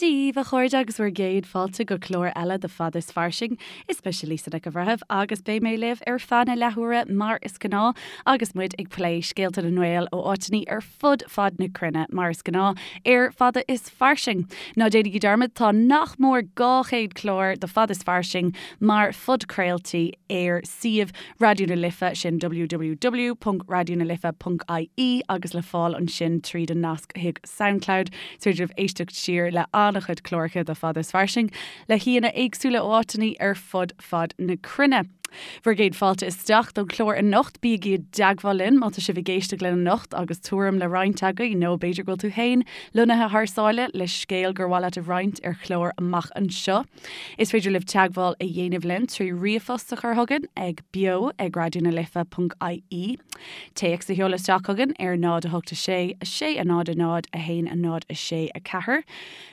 Dia daoibh, a chairde, agus bhur gcéad fáilte go clár eile de Fada is Fairsing. Is mise Lisa Nic an Bhreithimh agus beidh mé libh ar feadh na leathuaire mar is gnáth agus muid ag plé scéalta na nGael ó áiteanna ar fud fad na cruinne mar is gnáth ar Fada is Fairsing. Ná déanaigí dearmad, tá nach mór 200 clár de Fada is Fairsing mar phodchraoltaí ar suíomh Raidió na Life, sin www.raidionalife.ie agus le fáil ansin tríd an nasc chuig Soundcloud. Is féidir libh éisteacht siar le an-chuid cláracha de Fada is Fairsing le haíonna éagsúla ó áiteanna ar fud fad na cruinne. Bhur gcéad fáilte isteach don chlár anocht. Bígí i dteagmháil linn má tá sibh ag éisteacht linn anocht agus tuairim le roinnt agaibh nó b'fhéidir go bhfuil tú féin lonnaithe thar sáile le scéal gur mhaith leat a roinnt ar chlár amach anseo. Is féidir libh teagmháil a dhéanamh linn trí ríomhphost a chur chugainn ag beo ag raidionalife.ie, téacs a sheoladh isteach chugainn ar 0 8 6 6 0 0 1 0 6 4,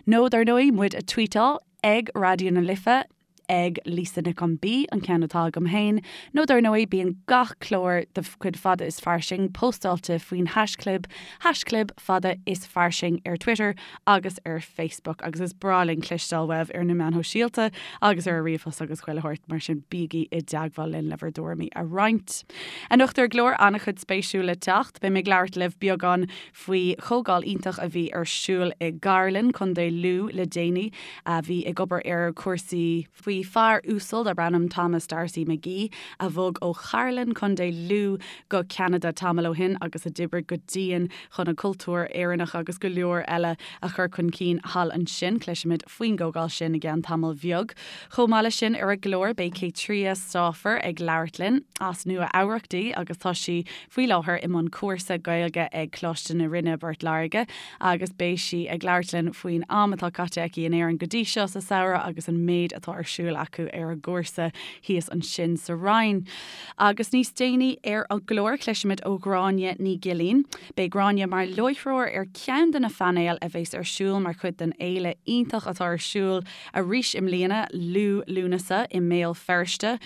nó dar ndóigh muid a tweetáil ag Raidió na Life, ag Lisa Nic an B, an ceann atá agam féin, nó dar ndóigh bíonn gach clár de chuid Fada is Fairsing póstáilte faoin haischlib, haischlib Fada is Fairsing ar Twitter agus ar Facebook agus is breá linn cloisteáil uaibh ar na meáin shóisialta agus ar an ríomhphost agus chuile shórt, mar sin bígí i dteagmháil linn le bhur dtuairimí a roinnt. Anocht ar an gclár, an-chuid spéisiúil le teacht. Beidh mé ag labhairt libh beagán faoi chomhdháil iontach a bhí ar siúl i gCairlinn, Contae Lú le déanaí, a bhí ag obair ar chúrsaí. faoi fear uasal darb ainm Thomas D'Arcy McGee a bhog ó Chairlinn, Contae Lú go Ceanada tamall ó shin agus a d'oibrigh go dian chun an cultúr Éireannach agus go leor eile a chur chun cinn thall ansin. Cloisfimid faoin gcomhdháil sin i gceann tamaill bheag. Chomh maith leis sin ar an gclár beidh Caitria Stauffer ag labhairt linn. As Nua Eabhrac di agus tá sí faoi láthair i mbun cúrsa Gaeilge ag Coláiste na Rinne i bPort Láirge agus beidh sí ag labhairt linn faoin am atá caite aici in Éirinn go dtí seo sa samhradh agus an méid atá ar siúl acu ar an gcúrsa thíos ansin sa Rinn. Agus níos déanaí ar an gclár cloisfimid ó Ghráinne Ní Ghilín. Beidh Gráinne mar láithreoir ar cheann de na phainéil a bheas ar siúl mar chuid den fhéile iontach atá ar siúl arís i mbliana, Liú Lúnasa i mBéal Feirste.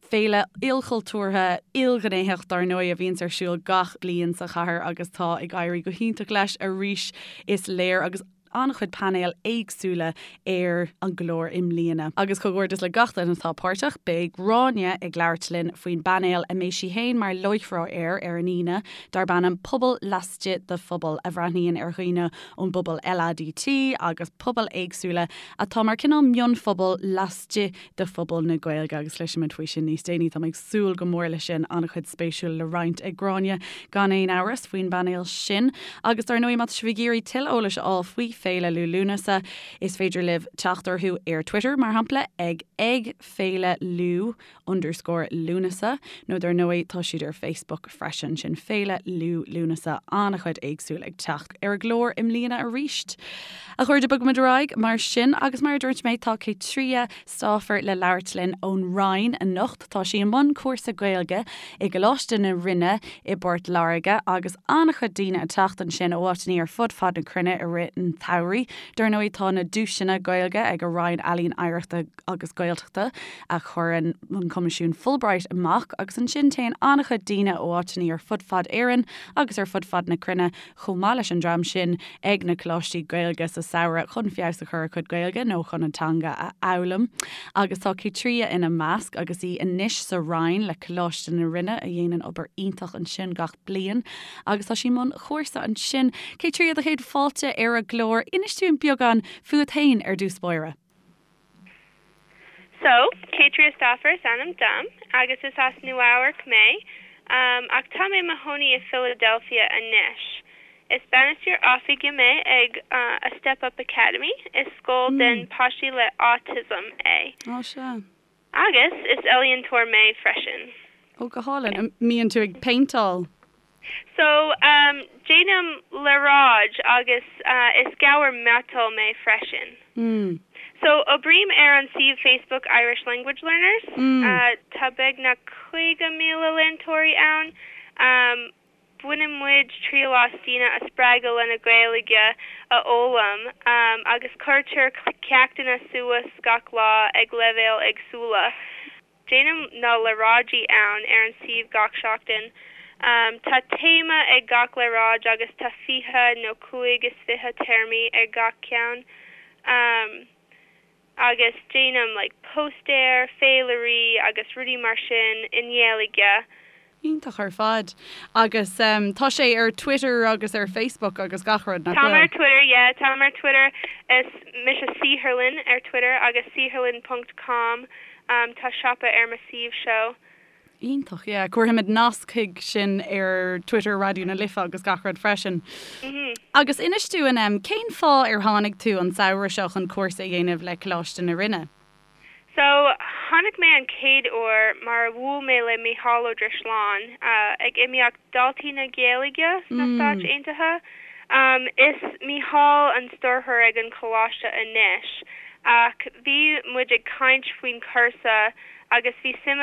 Féile ilchultúrtha, ilghnéitheach dar ndóigh a bhíonns ar siúl gach bliain sa chathair agus tá ag éirí go hiontach leis arís is léir agus an-chuid painéil éagsúla ar an gclár i mbliana. Agus comhghairdeas le gach duine atá páirteach. Beidh Gráinne ag labhairt linn faoin bpainéal a mbeidh sí féin mar láithreoir air ar an Aoine darb ainm 'Pobal Laistigh de Phobal' a bhreathnaíonn ar dhaoine ón bpobal LADT agus pobail éagsúla atá mar cineál mionphobal laistigh de phobal na Gaeilge agus cloisfimid faoi sin níos déanaí. Tá mé ag súil go mór leis sin, an-chuid spéisiúil le roinnt ag Gráinne gan aon amhras faoin bpainéal sin. Agus dar ndóigh má tá sibh ag iarraidh tuilleadh eolais a fháil faoi Féile Liú Lúnasa is féidir libh teacht orthu ar Twitter mar shampla ag ag Féile Liú underscore Lúnasa nó dar ndóigh tá siad ar Facebook freisin, sin Féile Liú Lúnasa, an-chuid éagsúil ag teacht ar an gclár i mbliana arís. A chairde, bogfaimid ar aghaidh mar sin agus mar a dúirt mé tá Caitria Stauffer le labhairt linn ón Rinn anocht. Tá sí i mbun cúrsa Gaeilge i gColáiste na Rinne i bPort Láirge agus an-chuid daoine ag teacht ansin ó áiteanna ar fud fad na cruinne i rith an tsamhraidh. Dar ndóigh tá na duaiseanna Gaeilge ag an Roinn Ealaíon Oidhreachta agus Gaeltachta a chuireann an Coimisiún Fulbright amach agus ansin téann an-chuid daoine ó áiteanna ar fud fad Éireann agus ar fud fad na cruinne chomh maith leis an dream sin ag na coláistí Gaeilge sa samhradh chun feabhas a chur ar a gcuid Gaeilge nó chun an teanga a fhoghlaim. Agus tá Caitria ina measc agus í anois sa Rinn le Coláiste na Rinne a dhéanann obair iontach ansin gach bliain agus tá sí i mbun chúrsa ansin. Caitria, do chéad fáilte ar an gclár. Inis dúinn beagán fút féin ar dtús báire. So, Caitria Stauffer is ainm dom, agus is as Nua Eabharc mé, ach tá mé i mo chónaí i Philadelphia anois. Is bainisteoir oifige mé ag A Step Up Academy, is scoil den páistí le autism é. Ó, sea. Agus is ealaíontóir mé freisin. Ó, go hálainn. An mbíonn tú ag péinteáil? So, déanaim léaráid agus is gabhar miotail mé freisin. So, oibrím ar an suíomh Facebook Irish Language Learners. Tá beagnach 50,000 leantóirí ann. Baineann muid triail as daoine a spreagadh lena Gaeilge a fhoghlaim agus cuirtear ceachtanna suas gach lá ag leibhéil éagsúla. Déanaim na léaráidí ann ar an suíomh gach seachtain. Tá téama ag gach léaráid agus tá 20 nó 25 téarmaí ar gach ceann. Um agus déanaim like póstaeir, féilirí agus rudaí mar sin i nGaeilge. Iontach ar fad. Agus tá sé ar Twitter agus ar Facebook agus gach rud, nach Táim ar Twitter, yeah, táim ar Twitter. Is mise Saotharlann ar Twitter agus saotharlann ponc com. Tá siopa ar mo suíomh seo. Iontach, yeah. Cuirfimid nasc chuig sin ar Twitter Raidió na Life agus gach rud freisin. Agus inis dúinn, cén fáth ar tháinig tú an samhradh seo chun cúrsa a dhéanamh le Coláiste na Rinne? So, tháinig mé an chéad uair mar a bhuail mé le Mícheál Ó Drisleáin ag imeacht Daltaí na Gaeilge sna Stáit Aontaithe. Is Mícheál an stiúrthóir ag an choláiste anois ach bhí muid ag caint faoin chúrsa agus bhí suim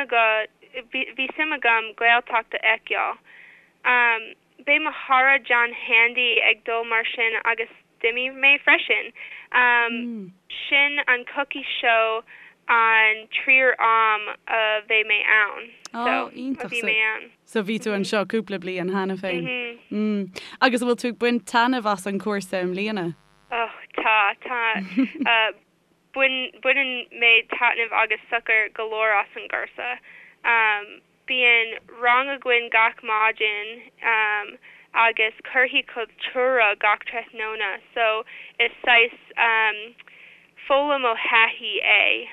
bhí suim agam Gaeltacht a fheiceáil. Beidh mo chara John Handy ag dul mar sin agus d'imigh mé freisin. Sin an coicís seo an tríú am a bheidh mé ann. So, a bhí mé ann. So bhí tú anseo cúpla bliain cheana féin. Agus an bhfuil tú ag baint taitneamh as an cúrsa i mbliana? Oh, tá, tá. Baineann mé taitneamh agus sochar go leor as an gcúrsa. Bíonn rang againn gach maidin agus cúrsaí cultúrtha gach tráthnóna so is saghas foghlaim ó thaithí é.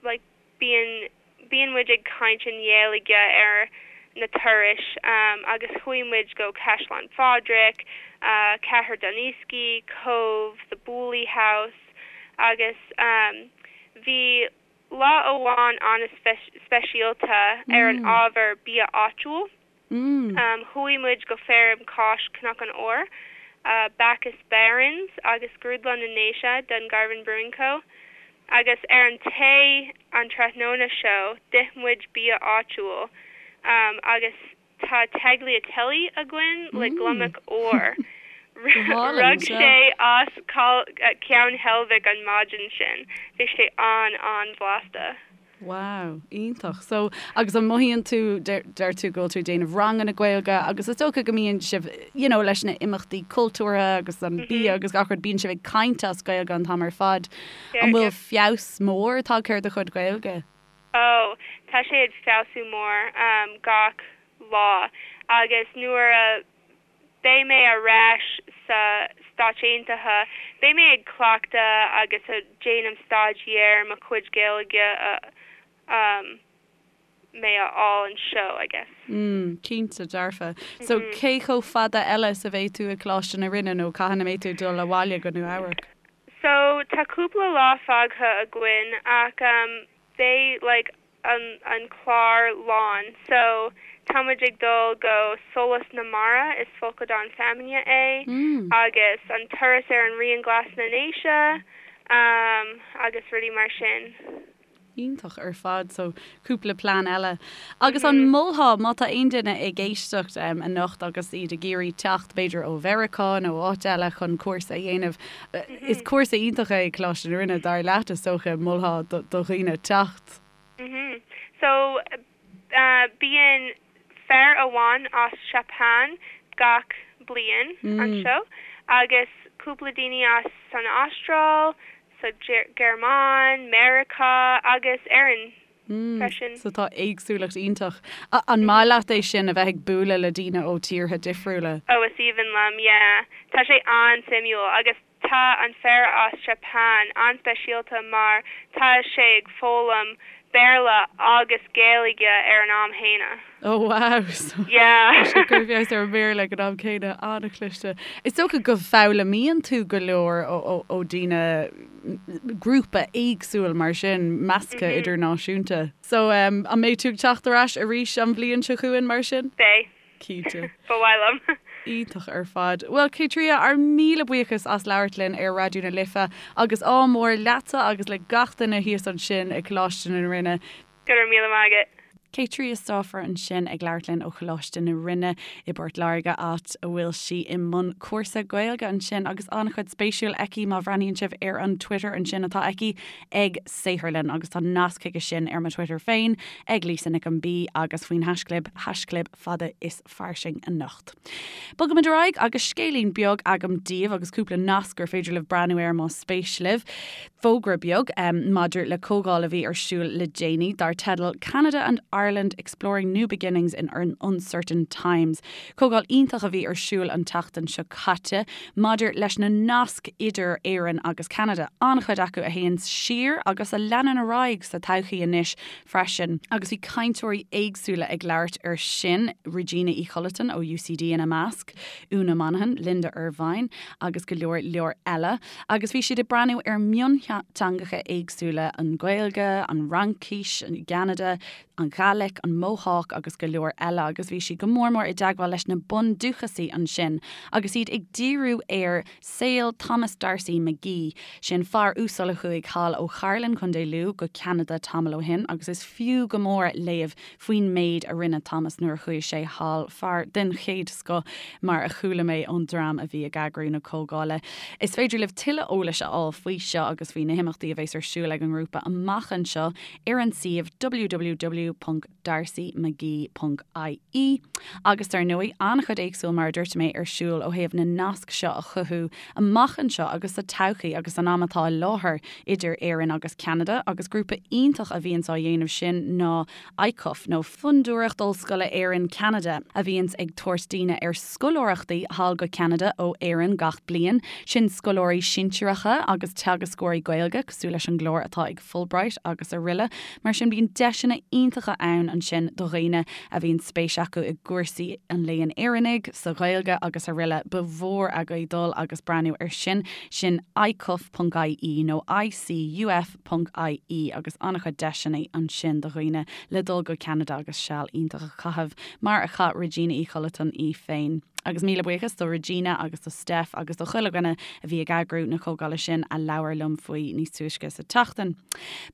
Like bíonn bíonn muid ag caint i nGaeilge ar na turais agus chuaigh muid go Caisleán Phádraig, Cathair Dooneiskey, Cobh, The Booley House agus bhí lá amháin an-speisialta ar an ábhar bia áitiúil. Chuaigh muid go Feirm Cáis Cnoc an Óir, Bacchus Barons agus Grúdlann na nDéise, Dungarvan Brewing Co. Agus ar an tae an tráthnóna seo d'ith muid bia áitiúil agus tá tagliatelle againn le gliomach óir. Rug sé as Ceann Heilbhic an maidin sin. Bhí sé an-an-bhlasta. Wow, iontach. So, agus an mothaíonn tú, deir tú go bhfuil tú ag déanamh ranganna Gaeilge agus is dócha go mbíonn sibh, you know, leis na imeachtaí cultúrtha agus an bia agus gach rud, bíonn sibh ag caint as Gaeilge an t-am ar fad. An bhfuil feabhas mór tagtha ar do chuid Gaeilge? Oh, tá sé ag feabhsú mór gach lá agus nuair a beidh mé ar ais sa Stáit Aontaithe, beidh mé ag cleachtadh agus ag déanamh staidéar mo chuid Gaeilge a mé a fháil anseo, I guess. Mm, cinnte, dearfa. So, cé chomh fada eile is a bheidh tú i Coláiste na Rinne nó cathain a mbeidh tú ag dul abhaile go Nua Eabhrac? So, tá cúpla lá fágtha againn ach beidh like an an clár lán so tá muid ag dul go Solas na Mara, is folcadán feamainne é, agus an turas ar an Rian Glas na nDéise agus rudaí mar sin. Iontach ar fad, so cúpla plean eile. Agus an molfá, má tá aon duine ag éisteacht anocht agus iad ag iarraidh teacht b'fhéidir ó Mheiriceá nó áit eile chun cúrsa a dhéanamh, is cúrsa iontach é Coláiste na Rinne, dar leat is dócha, molfá do dhaoine teacht? Mhm. So, bíonn fear amháin as Seapáin gach bliain anseo agus cúpla daoine as san Astráil, sa Ghearmáin, Meiriceá agus Éirinn freisin. So tá éagsúlacht iontach. An maith leat é sin, a bheith ag bualadh le daoine ó tíortha difriúla? Oh, is aoibhinn liom, yeah. Tá sé an-suimiúil agus Tá an fear as Seapáin an-speisialta mar tá sé ag foghlaim Béarla agus Gaeilge ar an am chéanna. Oh wow! So Yeah. tá sé ag cur feabhas ar an mBéarla ag an am céanna. An-chliste. Is dócha go bhfoghlaimíonn tú go leor ó dhaoine, grúpa éagsúil mar sin, measctha idirnáisiúnta. So an mbeidh tú ag teacht ar ais arís an bhliain seo chugainn mar sin? Beidh. Cinnte. Ba mhaith liom. Iontach ar fad. Bhuel, Caitríona, ár míle buíochas as labhairt linn ar Raidió na Life agus ádh mór leatsa agus le gach duine thíos ansin ag Coláiste na Rinne. Go raibh míle maith agat. Kate Triostófar ansin ag labhairt linn ó Choláiste na Rinne i bPort Láirge, áit a bhfuil sí i mbun cúrsa Gaeilge ansin agus an-chuid spéisiúil aici má bhreathnaíonn sibh ar an Twitter ansin atá aici ag Saotharlann agus tá nasc chuige sin ar mo Twitter féin ag Lisa Nic an B agus faoin haischlib, haischlib fada is fairsing anocht. Bogaimid ar aghaidh agus scéilín beag agam daoibh agus cúpla nasc gur féidir libh breathnú air más spéis libh. Fógra beag maidir le comhdháil a bhí ar siúl le déanaí dar teideal 'Canada and Ireland Exploring New Beginnings in Uncertain Times'. Comhdháil iontach a bhí ar siúl an tseachtain seo caite maidir leis na naisc idir Éirinn agus Ceanada, an-chuid acu a théann siar agus a leanann ar aghaidh sa todhchaí anois freisin. Agus bhí cainteoirí éagsúla ag labhairt air sin, Regina Uí Chollatáin ó UCD ina measc, Úna Monaghan, Linda Ervine agus go leor leor eile. Agus bhí siad ag breathnú ar mhionteangacha éagsúla, an Ghaeilge, an Fhraincis i gCeanada, an Ghàidhlig, an Mohawk agus go leor eile agus bhí siad go mór mór i dteagmháil leis na bundúchasaigh ansin agus iad ag díriú ar saol Thomas D'Arcy McGee, sin fear uasal a chuaigh thall ó Chairlinn, Contae Lú, go Ceanada tamall ó shin agus is fiú go mór léamh faoin méid a rinne Thomas nuair a chuaigh sé thall, fear den chéad scoth mar a chuala mé ón dream a bhí ag eagrú na comhdhála. Is féidir libh tuilleadh eolais a fháil faoi seo agus faoi na himeachtaí a bheas ar siúl ag an ngrúpa amach anseo ar an suíomh www. darcymcgee.ie Agus dar ndóigh, an-chuid éagsúil, mar a dúirt mé, ar siúl ó thaobh na nasc seo a chothú amach anseo agus sa todhchaí agus san am atá i láthair idir Éirinn agus Ceanada agus grúpa iontach a bhíonns á dhéanamh sin ná ICUF nó Fondúireacht Ollscoile Éireann Ceanada a bhíonns ag tabhairt daoine ar scoláireachtaí thall go Ceanada ó Éirinn gach bliain, sin scoláirí sinsearacha agus teagascóirí Gaeilge cosúil leis an gclár atá ag Fulbright agus aroile. Mar sin bíonn deiseanna iontacha ann ansin do dhaoine a bhíonn spéis acu i gcúrsaí an léann Éireannaigh, sa Ghaeilge agus aroile. Ba mhór agaibh dul agus breathnú ar sin. Sin icuf.ie nó icuf.ie agus an-chuid deiseanna ansin do dhaoine le dul go Ceanada agus seal iontach a chaitheamh mar a chaith Regina Uí Chollatáin í féin. Agus míle buíochas do Regina agus do Steph agus do chuile dhuine a bhí ag eagrú na comhdhála sin a labhair liom faoi níos túisce sa tseachtain.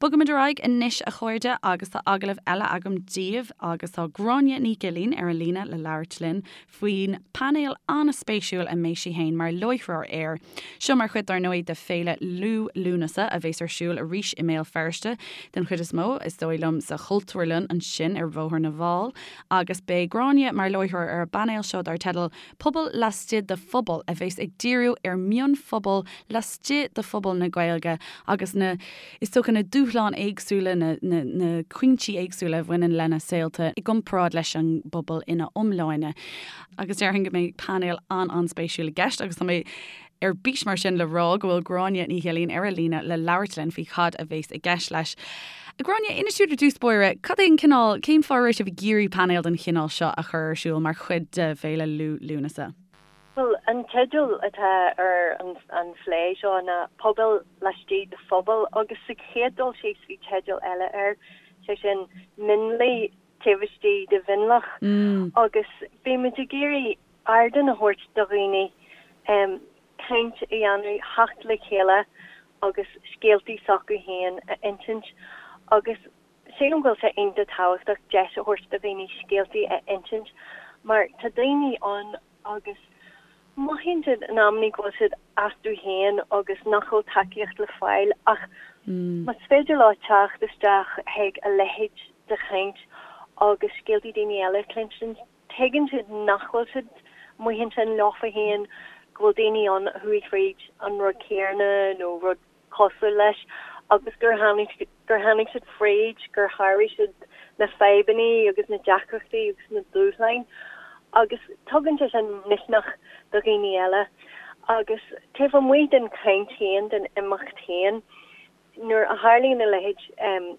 Bogaimid ar aghaidh anois a chairde agus tá agallamh eile agam daoibh agus tá Gráinne Ní Ghilín ar an líne le labhairt linn faoin painéal an-spéisiúil a mbeidh sí féin mar láithreoir air. Seo mar chuid dar ndóigh de Féile Liú Lúnasa a bheas ar siúl arís i mBéal Feirste den chuid is mó, is dóigh liom, sa Chultúrlann ansin ar Bhóthar na bhFál. Agus beidh Gráinne mar láithreoir ar an bpainéal seo dar teideal 'Pobal Laistigh de Phobal' a bheas ag díriú ar mhionphobail laistigh de phobal na Gaeilge agus na, is dócha, na dúshláin éagsúla, na, na, na cúinsí éagsúla a bhaineann lena saolta i gcomparáid leis an bpobal ina iomláine. Agus déarfainn go mbeidh painéal an-an-spéisiúil i gceist agus tá mé ar bís mar sin le rá go bhfuil Gráinne Ní Ghilín ar an líne le labhairt linn faoi cad a bheas i gceist leis. A Ghráinne, inis dúinn ar dtús báire, cad é an cineál, cén fáth a raibh sibh ag iarraidh painéal den chineál seo a chur ar siúl mar chuid de Féile Liú Lúnasa? Bhuel, an teideal atá ar an phlé seo ná 'Pobail Laistigh de Phobal' agus sa chéad dul síos bhí teideal eile air, sé sin 'Mionlaigh Taobh Istigh de Mhionlach' agus bhí muid ag iarraidh ardán a thabhairt do dhaoine caint a dhéanamh, theacht le chéile agus scéaltaí s'acu féin a insint agus sílim go bhfuil sé iontach tábhachtach deis a thabhairt do dhaoine scéaltaí a insint mar tá daoine ann agus mothaíonn siad in amannaí go bhfuil siad astu féin agus nach bhfuil tacaíocht le fáil ach más féidir leo teacht isteach chuig a leithéid de chaint agus scéaltaí daoine eile a chluinstin Tuigeann siad nach bhfuil siad amuigh ansin leofa féin, go bhfuil daoine ann a chuaigh fríd an rud céanna nó rud cosúil leis agus gur tháinig, gur tháinig siad fríd, gur sháraigh siad na fadhbanna agus na deacrachtaí agus na dúshláin agus tugann sé sin misneach do dhaoine eile. Agus taobh amuigh den chaint féin, den imeacht féin, nuair a tharlaíonn a leithéid,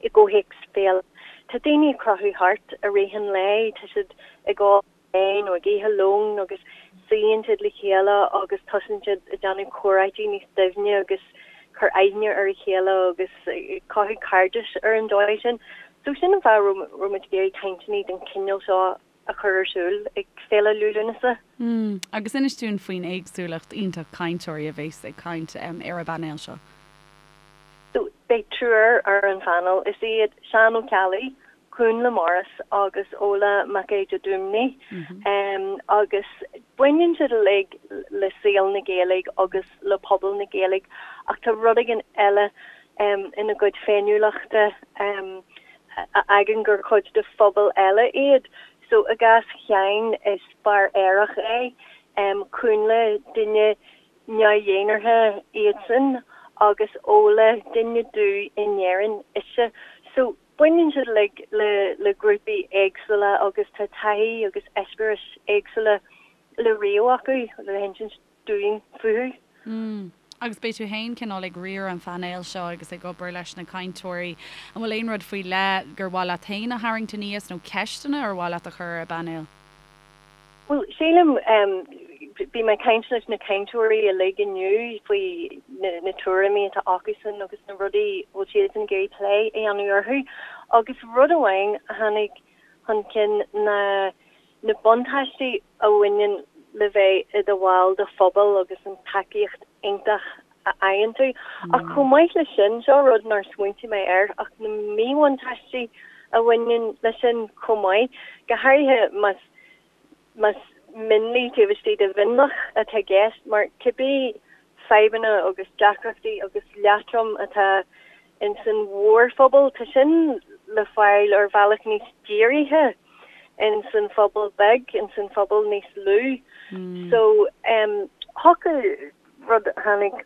i gcomhthéacs féile. Tá daoine ag crochadh thart i rith an lae, tá siad ag ól tae nó ag ithe lóin agus suíonn siad le chéile agus tosaíonn siad ag déanamh comhráití níos doimhne agus cur aithne ar a chéile agus ag cothú cairdis ar an dóigh sin. So sin an fáth a raibh muid ag iarraidh cainteanna den chineál seo a chur ar siúl ag Féile Liú Lúnasa. Agus inis dúinn faoin éagsúlacht iontach cainteoirí a bheas ag caint ar an bpainéal seo. So, beidh triúr ar an phainéal. Is iad Seán Ó Ceallaigh, Cúnla Morris agus Ola Mac Aodha Dúmhnaigh agus baineann siad uilig le saol na Gaeilge agus le pobal na Gaeilge ach tá rud éigin eile ina gcuid féiniúlachta a fhágann gur cuid de phobal eile iad. So i gcás Sheáin is fear aerach é, Cúnla duine neamh-dhénártha iadsan agus Ola duine dubh in Éirinn ise. So baineann siad uilig le le grúpaí éagsúla agus tá taithí agus eispéiris éagsúla le ríomh acu le hinsint dúinn fúthu. Mm. Agus beidh tú féin cineál ag riar an phainéil seo agus ag obair leis na cainteoirí. An bhfuil aon rud faoi leith gur mhaith leat féin a tharraingt aníos nó ceisteanna ar mhaith leat a chur ar an bpainéal? Bhuel, sílim, bhí mé ag caint leis na cainteoirí uilig inniu faoi na tuairimí atá acusan agus na rudaí a bhfuil siadsan ag iarraidh plé a dhéanamh orthu. Agus rud amháin a tháinig chun cinn ná na buntáistí a bhaineann le bheith i do bhall de phobal agus an tacaíocht iontach a fhaigheann tú. Ach chomh maith leis sin, seo rud nár smaointigh mé air, ach na míbhuntáistí a bhaineann leis sin chomh maith, go háirithe más más mionlaigh taobh istigh de mhionlach atá i gceist, mar cibé fadhbanna agus deacrachtaí agus leatrom atá ins an mhórphobal, tá sin le fáil ar bhealach níos dírithe ins an phobal beag, ins an phobal níos lú. So, thiocfadh Rud a tháinig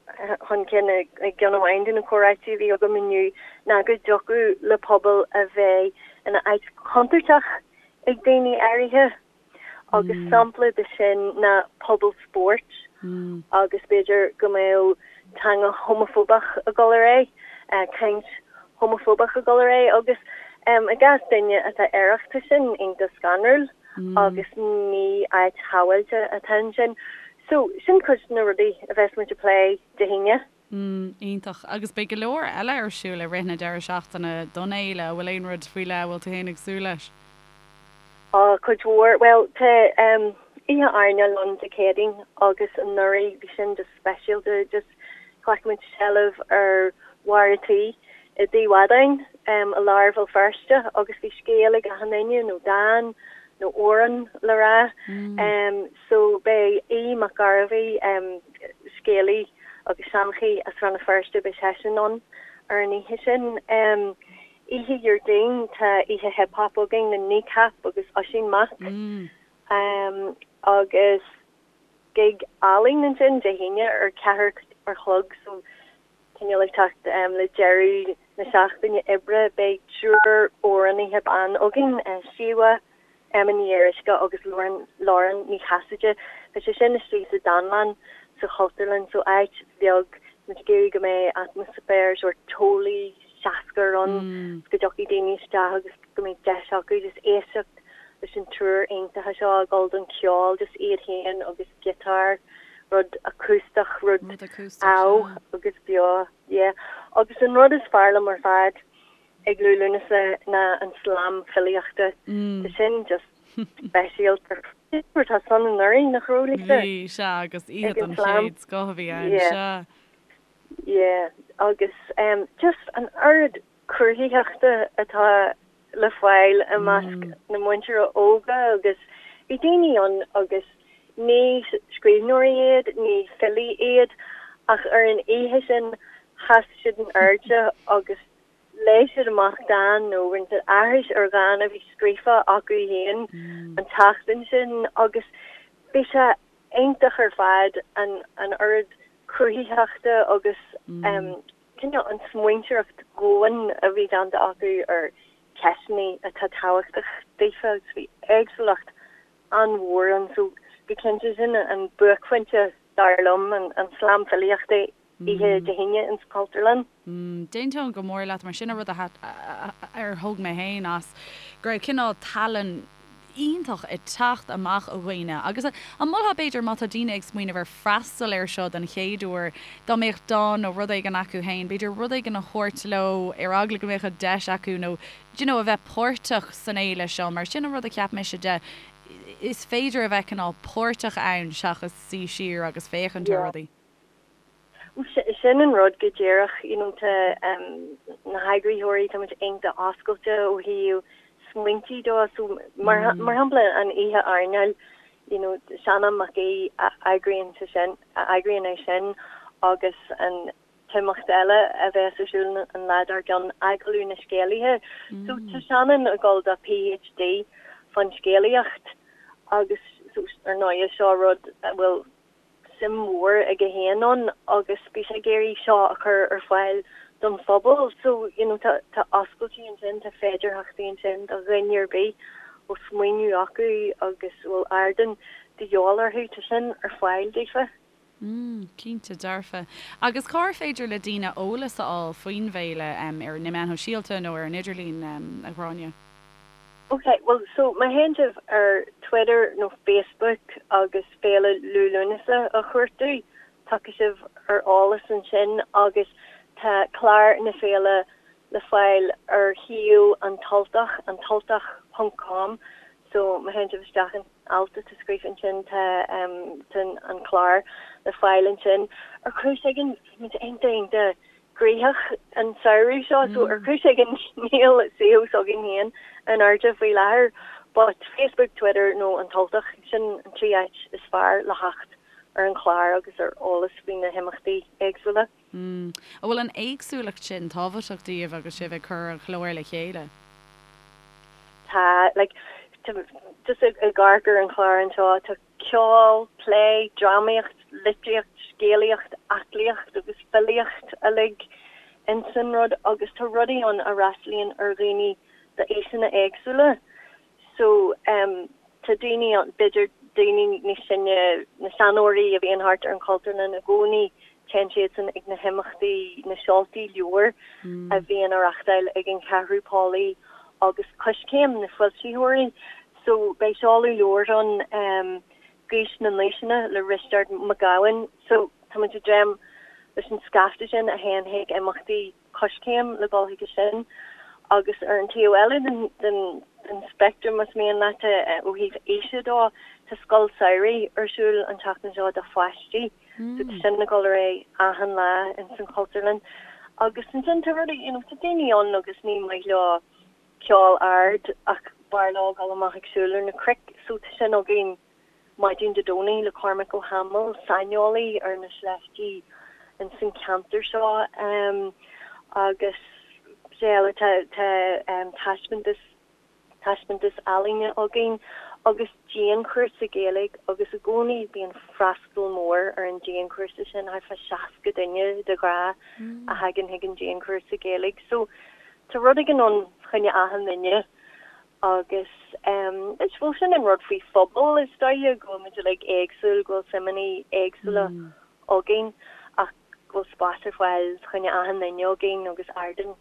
chun cinn i gceann amháin de na comhráití a bhí agam inniu ná go dtiocfadh le pobal a bheith ina áit chontúirteach ag daoine áirithe agus sampla de sin ná pobal spóirt agus b'fhéidir go mbeadh teanga homafóbach ag dul ar aghaidh, caint homafóbach ag dul ar aghaidh agus i gcás duine atá aerach tá sin iontach scanrúil. agus ní áit shábháilte atá ansin. So, sin cuid de na rudaí a bheas muid ag plé Dé hAoine. Mm, iontach. Agus beidh go leor eile ar siúl i rith na deireadh seachtaine don fhéile. An bhfuil aon rud faoi leith a bhfuil tú féin ag súil leis? Á, cuid mhór. Bhuel, tá oíche airneáil ann Dé Céadaoin agus anuraidh bhí sin just speisialta, just ghlac muid seilbh ar bharr a' tí i dTigh Mhadáin i lár Bhéal Feirste agus bhí scéal ag achan duine nó dán nó amhrán le rá. So beidh Aodh Mac Gairbheith, scéalaí agus seanchaí as Rann na Feirste, beidh seisean ann ar an oíche sin. Oíche Dhéardaoin tá oíche hip hop againn le Kneecap agus Oisín Mac agus gig álainn ansin Dé hAoine ar 4 ar chlog so Cineál ag teacht le deireadh na seachtaine oibre, beidh triúr amhránaithe ban againn, Síomha, Emma Ní Fhíoruisce agus Lauren Lauren Ní Chasaide. Beidh sé sin istigh sa Dánlann sa Chultúrlann, so áit bheag, muid ag iarraidh go mbeidh atmaisféar sórt teolaí, seascair ann, go dtiocfaidh daoine isteach agus go mbeidh deis acu just éisteacht leis an triúr iontacha seo ag dul don cheol, just iad féin agus giotár. rud acústach, rud amh agus beo, yeah. Agus an rud is fearr liom ar fad ag Liú Lúnasa ná an slam filíochta. Tá sin just speisialta. Raibh tusa ann anuraidh, nach raibh, Lisa? Bhí, sea, agus oíche den chéad scoth a bhí ann, sea. Yeah, agus just an oiread cruthaitheachta atá le fáil i measc na muintire óga agus bhí daoine ann agus ní scríbhneoirí iad, ní filí iad ach ar an oíche sin sheas siad in airde agus léigh siad amach dán nó rinne siad aithris ar dhán a bhí scríofa acu féin an tseachtain sin agus bhí sé iontach ar fad an an oiread cruthaitheachta agus cineál an smaointeoireacht dhomhain a bhí déanta acu ar cheisteanna atá tábhachtach daofa agus bhí éagsúlacht an-mhór ann so go cinnte sin an buaicphointe dar liom, an slam filíochta oíche Dé hAoine ins an Chultúrlann. D'aontóinn go mór leat mar sin an rud a ar thóg mé féin as go raibh cineál tallann iontach ag teacht amach ó dhaoine agus an molfá b'fhéidir má tá daoine ag smaoineamh ar freastal air seo den chéad uair dá mbeadh dán nó rud éigin acu féin b'fhéidir rud éigin a thabhairt leo ar eagla go mbeadh an deis acu nó do you know a bheith páirteach san fhéile seo mar sin an rud a cheap mise de is féidir a bheith cineál páirteach ann seachas suí siar agus féachaint ar rudaí. Sin an rud go díreach, you know, tá na heagraitheoirí, tá muid iontach oscailte ó thaobh. smaointí dó so mar mar shampla an oíche airneáil you know Seanán Mac Aoidh a eagraíonn sé sin a eagraíonn é sin agus an t-imeacht eile a bheas ar siúl an lá dár gcionn Agallamh na Scéalaithe. So tá Seanán ag dul do PhD fán scéalaíocht agus so ar ndóigh seo rud a bhfuil suim mhór aige féin ann agus bhí sé ag iarraidh seo a chur ar fáil don phobal. So, you know, tá tá oscailtí ansin, tá féidearthachtaí ansin do dhuine ar bith a bhfuil smaoineamh acu agus a bhfuil ardán de dhíobháil orthu, tá sin ar fáil daofa. Mm, cinnte dearfa. Agus cár féidir le daoine eolas a fháil faoin bhféile, ar na meáin shóisialta nó ar an idirlíon, a Ghráinne? Ok, bhuel, so má théann sibh ar Twitter nó Facebook agus Féile Liú Lúnasa a chuartú, tiocfaidh sibh ar eolas ansin agus tá clár na féile le fáil ar shuíomh An tUltach, antultach ponc com, so má théann sibh isteach an alt atá scríofa ansin tá tá an clár le fáil ansin. Ar chúis éigin, bhí muid iontach iontach gnoitheach an samhradh seo so ar chúis éigin níl suíomh s'againn féin in airde faoi láthair but Facebook, Twitter nó An tUltach, sin an trí áit is fearr le theacht ar an chlár agus ar eolas faoi na himeachtaí éagsúla. An bhfuil an éagsúlacht sin tábhachtach daoibh agus sibh ag cur an chláir le chéile? Tá, like, just ag amharc ar an chlár anseo, tá ceol, plé, drámaíocht, litríocht, scéalaíocht, aclaíocht agus filíocht uilig ins an rud agus tá rudaí ann a fhreastalaíonn ar dhaoine d'aoiseanna éagsúla. So em tá daoine ann, b'fhéidir daoine níos sine, na seanóirí a bhíonn thart ar an Chultúrlann i gcónaí, téann siadsan ag na himeachtaí, na seoltaí leabhar a bhíonn á reachtáil ag an Cheathrú Póilí agus Coiscéim, na foilsitheoirí. So beidh seoladh leabhair ann, Gaois na nAoiseanna le Risteard Mac Gabhann. So tá muid ag dréim leis an scaifte sin a théann chuig imeachtaí Coiscéim le dul chuige sin. Agus ar an taobh eile den den den speictream, más mian leat, ó thaobh aoise dó, tá scoil samhraidh ar siúl an tseachtain seo do pháistí. So tá sin ag dul ar aghaidh achan lá ins an Chultúrlann. Agus ansin tá rudaí, you know, tá daoine ann agus ní maith leo ceol ard ach b'fhearr leo dul amach ag siúl ar na cnoic so tá sin againn maidin Dé Domhnaigh le Cormac Ó hAdhmaill, saineolaí ar na sléibhtí ins an ceantar seo agus cad eile tá tá taispeántas taispeántas ealaíne againn agus dianchúrsa Gaeilge agus i gcónaí bíonn freastal mór ar an dianchúrsa sin, thart fá 60 duine de ghnáth a thagann chuig an dianchúrsa Gaeilge so Tá rud éigin ann fá choinne achan duine agus is bhuel sin an rud faoi phobal is dóiche, go bhfuil muid uilig éagsúil, go bhfuil suimeanna éagsúla againn ach go bhfuil spás ar fáil fá choinne achan duine againn agus ardán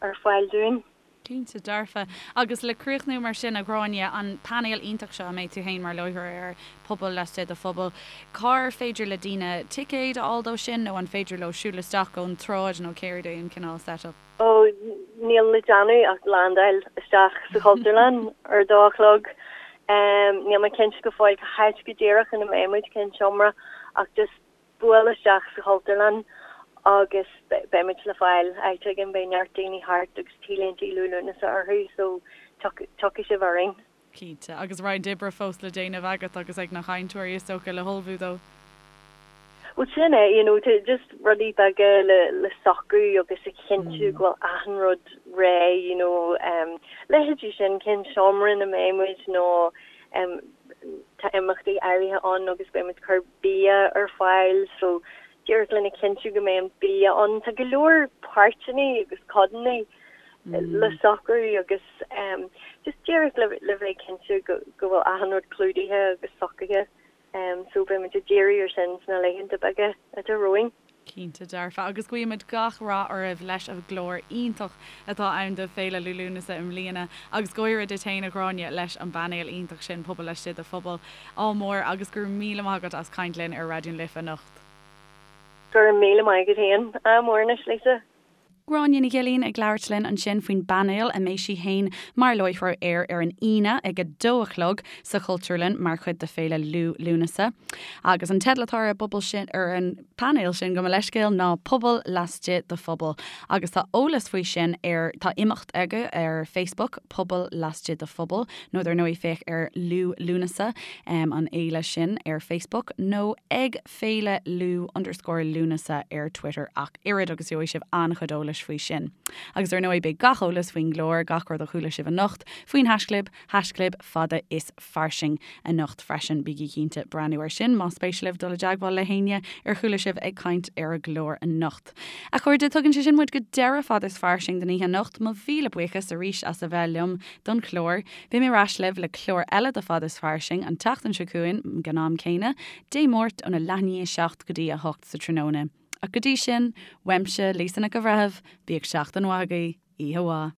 ar fáil dúinn. Cinnte dearfa. Agus le críochnú mar sin, a Ghráinne, an painéal iontach seo a mbeidh tú féin mar láithreoir air, Pobal Laistigh de Phobal, cár féidir le daoine ticéid a fháil dó sin nó an féidir leo siúl isteach ón tsráid nó céard é an cineál set-up? Ó, níl le déanamh ach landáil isteach sa Chultúrlann ar a dó a chlog. Níl mé cinnte go fóill cá háit go díreach ina mbeidh muid, cén seomra, ach just buail isteach sa Chultúrlann agus beidh muid le fáil áit éigin, beidh neart daoine thart agus T-léinte Liú Lúnasa orthu so tiocfaidh sibh orainn. Cinnte. Agus roinnt oibre fós le déanamh agat agus ag na cainteoirí is dócha le hullmhú dó. Bhuel sin é, you know, just rudaí beaga le le socrú agus a chinntiú go bhfuil achan rud réidh, you know, um, leithéidí sin, cén seomra ina mbeidh muid nó um, tá imeachtaí áirithe ann agus beidh muid ag cur bia ar fáil so díreach lena chinntiú go mbeidh an bia ann. Tá go leor páirteanna agus codanna le socrú agus just díreach le le bheith cinnte go go bhfuil achan rud clúdaithe agus socraithe so beidh muid ag díriú ar sin sna laethanta beaga atá romhainn. Cinnte dearfa. Agus guímid gach rath oraibh leis an gclár iontach atá ann do Féile Liú Lúnasa i mbliana agus go háirithe duit féin a Ghráinne leis an bpainéal iontach sin Pobal Laistigh de Phobal. Ádh mór agus go raibh míle maith agat as caint linn ar Raidió na Life anocht. Go raibh míle maith agat féin. Ádh mór anois Lisa. Gráinne Ní Ghilín ag labhairt linn ansin faoin bpainéal a mbeidh sí féin mar láithreoir air ar an Aoine ag a dó a chlog sa Chultúrlann mar chuid de Féile Liú Lúnasa. Agus an teideal atá ar an bpobal sin, ar an bpainéal sin, gabh mo leithscéal, ná Pobal Laistigh de Phobal. Agus tá eolas faoi sin ar, tá imeacht acu ar Facebook, Pobal Laistigh de Phobal, nó dar ndóigh féach ar Liú Lúnasa, an fhéile sin ar Facebook, nó ag. Féile Liú underscore Lúnasa ar Twitter ach oiread agus gheobhaidh sibh an-chuid eolais faoi sin. Agus ar ndóigh beidh gach eolas faoin gclár, gach rud a chuala sibh anocht faoin haischlib, haischlib fada is fairsing anocht freisin. Bígí cinnte breathnú ar sin más spéis libh dul i dteagmháil le héinne ar chuala sibh ag caint ar an gclár anocht. A chairde, tugann sé sin muid go deireadh Fada is Fairsing don oíche anocht. Mo mhíle buíochas arís as a bheith liom don chlár. Beidh mé ar ais libh le clár eile de Fada is Fairsing an tseachtain seo chugainn ag an am céanna, Dé Máirt óna leath i ndiaidh 7 go dtí 8 sa tráthnóna. Ach go dtí sin, uaimse, Lisa Nic an Bhreithimh, bíodh seachtain mhaith agaibh, oíche mhaith.